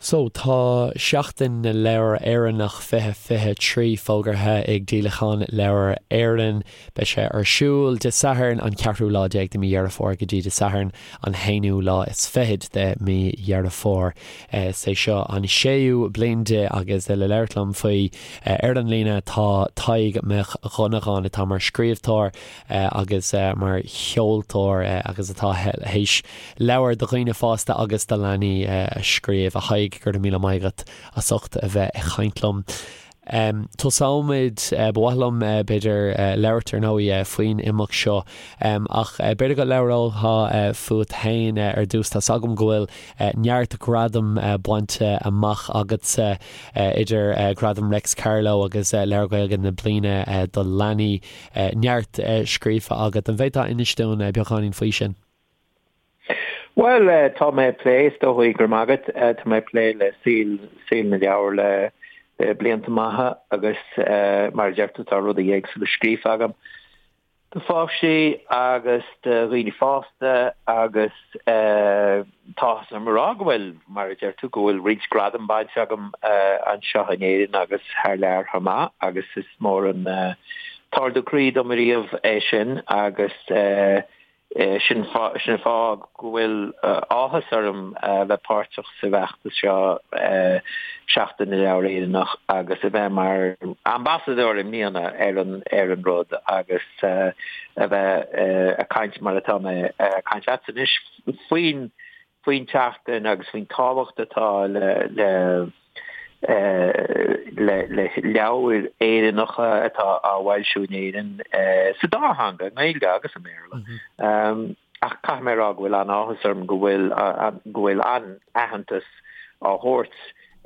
So, tá Seachtain na Leabhar Éireannach 2023 fógartha ag Díolachán Leabhar Éireann. Beidh sé ar siúl Dé Sathairn an ceathrú lá déag de mí Dheireadh Fómhair go dtí Dé Sathairn an haonú lá is fichead de mí Dheireadh Fómhair. Is é seo an séú bliain de agus le labhairt liom faoi ar an líne tá Tadhg Mac Dhonnagáin atá mar scríbhneoir agus mar cheoltóir agus atá théis leabhair do dhaoine fásta agus do leanaí a scríobh. A Thaidhg, go raibh míle maith agat as ucht a bheith ag caint liom. Tosóimid, ba mhaith liom, b'fhéidir, labhairt ar ndóigh faoin imeacht seo ach b'fhéidir go labhrófá fút féin ar dtús. Tá's agam go bhfuil neart gradam bainte amach agatsa, idir Gradam Réics Carló agus Leabhar Gaeilge na Bliana do Leanaí. Neart scríofa agat. An bhféadfá inis dúinn beagáinín faoi sin? Bhuel, tá mé ag plé, is dóigh, go raibh maith agat, tá mé ag plé le saol, saol na leabhar le blianta maithe agus mar a deir tú tá rudaí éagsúla scríofa agam do pháistí agus do dhaoine fásta agus tá áthas orm a rá go bhfuil, mar a deir tú, go bhfuil roinnt gradam bainte agam anseo in Éirinn agus thar lear chomh maith agus is mór an t-ardú croí dom ariamh é sin agus Sin an fáth go bhfuil áthas orm a bheith páirteach sa bhfeachtas seo, Seachtain na Leabhar Éireannach, agus a bheith mar ambasadóir i mbliana ar an ar an rud agus a bheith ag caint mar atá mé ag caint leatsa anois faoin faoin tseachtain agus faoin tábhacht atá le le le leabhair Éireannacha atá á bhfoilsiú in Éirinn sa dá theanga, i nGaeilge agus i mBéarla. Ach caithfidh mé a rá go bhfuil an-áthas orm go bhfuil go bhfuil an-aitheantas á thabhairt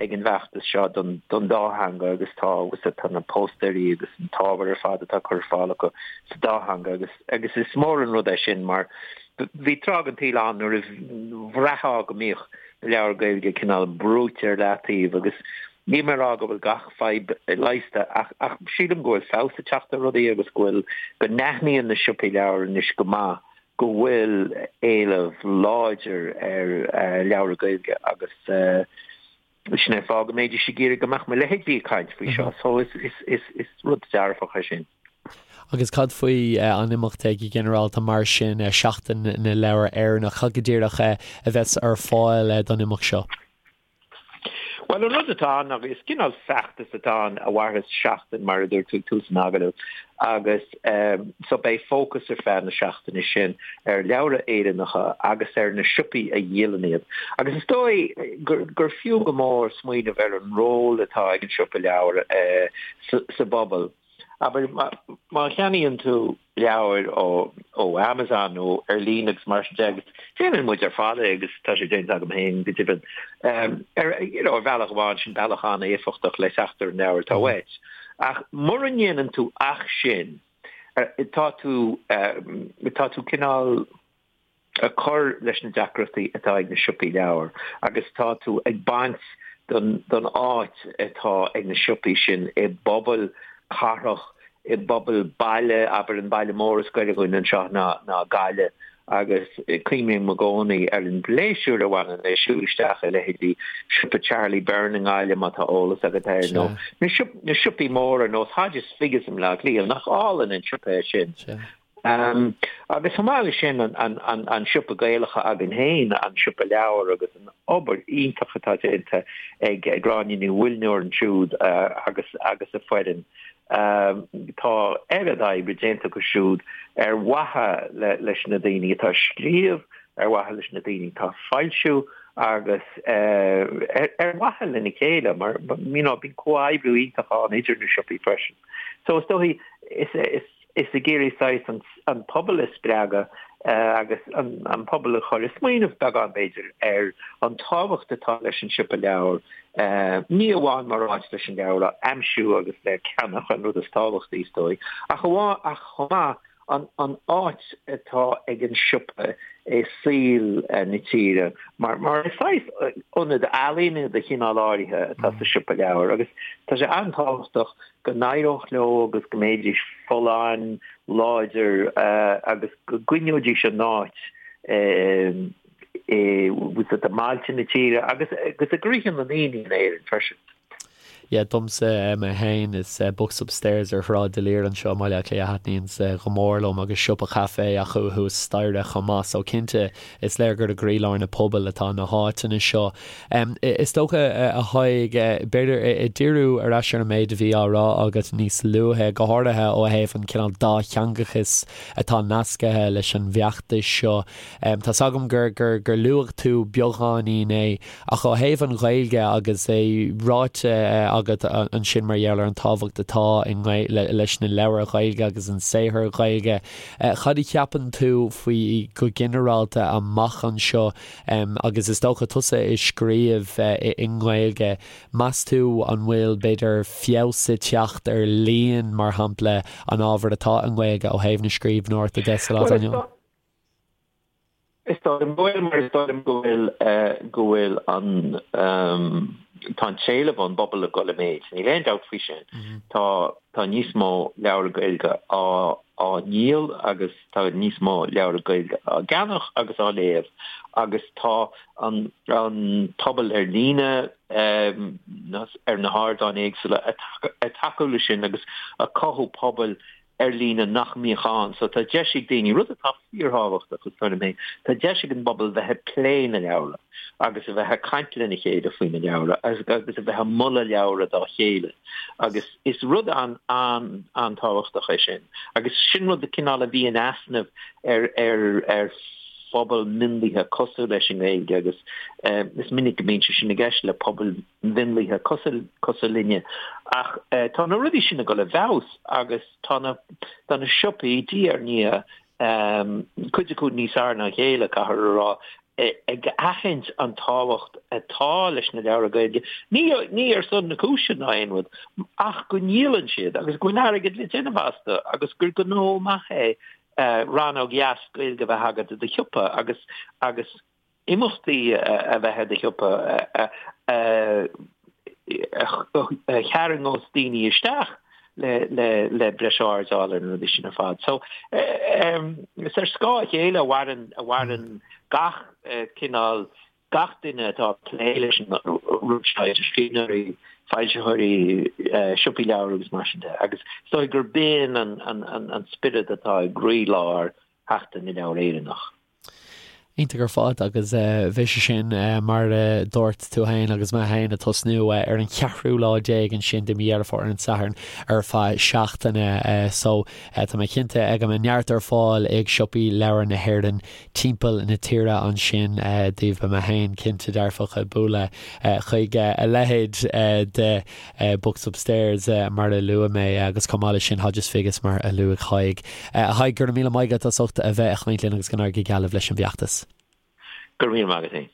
ag an bhfeachtas seo don don dá theanga agus tá agus tá na póstaeirí agus an t-ábhar ar fad atá curtha ar fáil acu sa dá theanga agus agus is mór an rud é sin mar bhí tráth den tsaol ann nuair a bhraithfeá go mbíodh na leabhair Gaeilge cineál brúite ar leataobh agus níl mé ag rá go bhfuil gach fadhb leigheasta ach ach sílim go bhfuil feabhas ag teacht ar rudaí agus go bhfuil go n-aithníonn na siopaí leabhar anois go maith go bhfuil éileamh láidir ar leabhra Gaeilge agus sin é an fáth go mbeidís ag iarraidh go mbeadh mo leithéidí ag caint faoi seo. So is is is is rud dearfach é sin. Agus cad faoi an imeacht go ginearálta mar sin, Seachtain na Leabhar Éireannach, cad go díreach a bheas ar fáil don imeacht seo? Bhuel, an rud atá ann ná is cineál feachtas atá ann a mhairfeas seachtain, mar a dúirt tú ag tús an agallaimh, agus so beidh fócas ar feadh na seachtaine sin ar leabhra Éireannacha agus ar na siopaí a dhíolann iad. Agus is dóigh gur fiú go mór smaoineamh ar an ról atá ag an siopa leabhar sa bpobal. Abair, má cheannaíonn tú leabhair ó Amazon nó ar líne agus mar sin de, agus déanann muid ar fad é agus tá sé déanta agam féin go deimhin, ar you know ar bhealach amháin sin bealach an-éifeachtach le teacht ar an leabhar atá uait. Ach mura ndéanann tú ach sin, tá tú, tá tú cineál. ag cur leis na deacrachtaí atá ag na siopaí leabhar agus tá tú ag baint den den áit atá ag na siopaí sin i bpobail cathrach, i bpobail baile, abair an baile mór is gaire dhúinn anseo ná ná Gaillimh agus cuimhním i gcónaí ar an bpléisiúr a bhaineann le siúl isteach i leithéidí siopa Charlie Byrne i nGaillimh má tá eolas agat air nó na na siopaí móra ar nós Hodges Figgis i mBleá Cliath, nach álainn an siopa é sin. Agus chomh maith leis sin, an siopa Gaelach againn féin, an siopa leabhar agus an obair iontach atá déanta ag Gráinne Ní Mhuilneoir ansiúd agus agus a foireann. Tá oiread oibre déanta acu siúd ar mhaithe leis na daoine atá ag scríobh, ar mhaithe leis na daoine atá ag foilsiú agus ar mhaithe lena chéile mar you know bíonn comhoibriú iontach ann idir na siopaí freisin. So is dóigh is is Is ag iarraidh saghas an pobal a spreagadh agus an pobal a chur ag smaoineamh beagán b'fhéidir ar an tábhacht atá leis an siopa leabhar, ní amháin mar áit leis an leabhar a aimsiú agus le ceannach, an rud is tábhachtaí is dóigh, ach ach chomh maith an áit atá ag an siopa i saol na tíre mar mar is saghas ionad ealaíne de chineál áirithe atá sa siopa leabhar agus tá sé an-tábhachtach go n-éireodh leo agus go mbeidís folláin, láidir agus go gcoinneoidís a n-áit. i mbailte na tíre agus agus i gcroíthe na ndaoine in Éirinn freisin. Yeah, domsa mé féin, is Books Upstairs ar Shráid D'Olier anseo i mBaile Átha Cliath a thaitníonns go mór liom agus siopa caife acu thuas staighre chomh maith so cinnte is léir gur i gcroílár na pobail atá na háiteanna seo. Is dócha, a Thaidhg, b'fhéidir ag díriú ar ais ar an méid a bhí á rá agat níos luaithe, go háirithe ó thaobh an cineál dátheangachais atá nascaithe leis an bhfeachtas seo. Tá's agam gur gur gur luaigh tú beagáinín é Ach ó thaobh an Ghaeilge agus é ráite agat ansin mar gheall ar an tábhacht atá leis na leabhair Ghaeilge agus an saothar Gaeilge, cad a cheapann tú faoi go ginearálta amach anseo agus is dócha tusa ag scríobh i nGaeilge, meas tú an bhfuil b'fhéidir feabhas ag teacht ar líon mar shampla an ábhair atá i nGaeilge ó thaobh na scríbhneoireachta de sa lá atá inniu ann? Is dóigh liom go bhfuil, mar is dóigh liom go bhfuil, go bhfuil an, tá an t-éileamh ón bpobal ag dul i méid, níl aon dabht faoi sin. Tá, tá níos mó leabhar Gaeilge á, á ndíol agus tá níos mó leabhar Gaeilge á gceannach agus á léamh agus tá an, an pobal ar líne, ar na hardáin éagsúla ag tacú leis sin agus ag cothú pobail ar líne nach mbíodh ann. So tá deis ag daoine, rud atá fíorthábhachtach is dóigh liom féin, tá deis ag an bpobal bheith ag plé na leabhra agus a bheith ag caint lena chéile faoi na leabhra agus a bheith ag moladh leabhra dá chéile agus is rud an-an-tábhachtach é sin agus sin rud cineál a bhí in easnamh ar ar ar phobal mionlaithe cosúil leis an nGaeilge agus is minic go mbíonn sé sin i gceist le pobail mhionlaithe cosúil cosúil linne. Ach tá na rudaí sin ag dul i bhfeabhas agus tá na tá na siopaí diaidh ar ndiaidh, cuid acu níos fearr ná a chéile, caithfear a rá, ag aithint an tábhacht atá leis na leabhra Gaeilge, ní ní ar son na cúise ná aon rud, ach go ndíolann siad agus go bhfuil airgead le déanamh astu agus gur gnó maith é rannóg dheas Gaeilge a bheith agat i do shiopa agus agus imeachtaí a bheith i do shiopa a tharraingeos daoine isteach le breis aird a fháil ar na rudaí sin ar fad. So, is ar scáth a chéile a mhaireann, a mhaireann gach cineál, gach duine atá ag plé leis an rud seo, idir scríbhneoirí, foilsitheoirí, siopaí leabhar agus mar sin de. Agus is dóigh gurb in an spiorad atá i gcroílár Sheachtain na Leabhar Éireannach. Iontach ar fad agus beidh sé sin mar a dúirt tú féin agus mé féin ag tosnú ar an cheathrú lá déag ansin de mhí Dheireadh Fómhair ar an Satharn ar feadh seachtaine so tá mé cinnte go mbeidh neart ar fáil ag siopaí leabhar na hÉireann timpeall na tíre ansin daoibh. Beidh mé féin cinnte dearfach ag bualadh chuig a leithéid de Books Upstairs mar a luaigh mé agus chomh maith leis sin Hodges Figgis mar a luaigh Tadhg. A Thaidhg, go raibh míle maith agat as ucht a bheith ag caint linn agus go n-éirí go geal libh leis an bhfeachtas. Go raibh míle maith agat féin.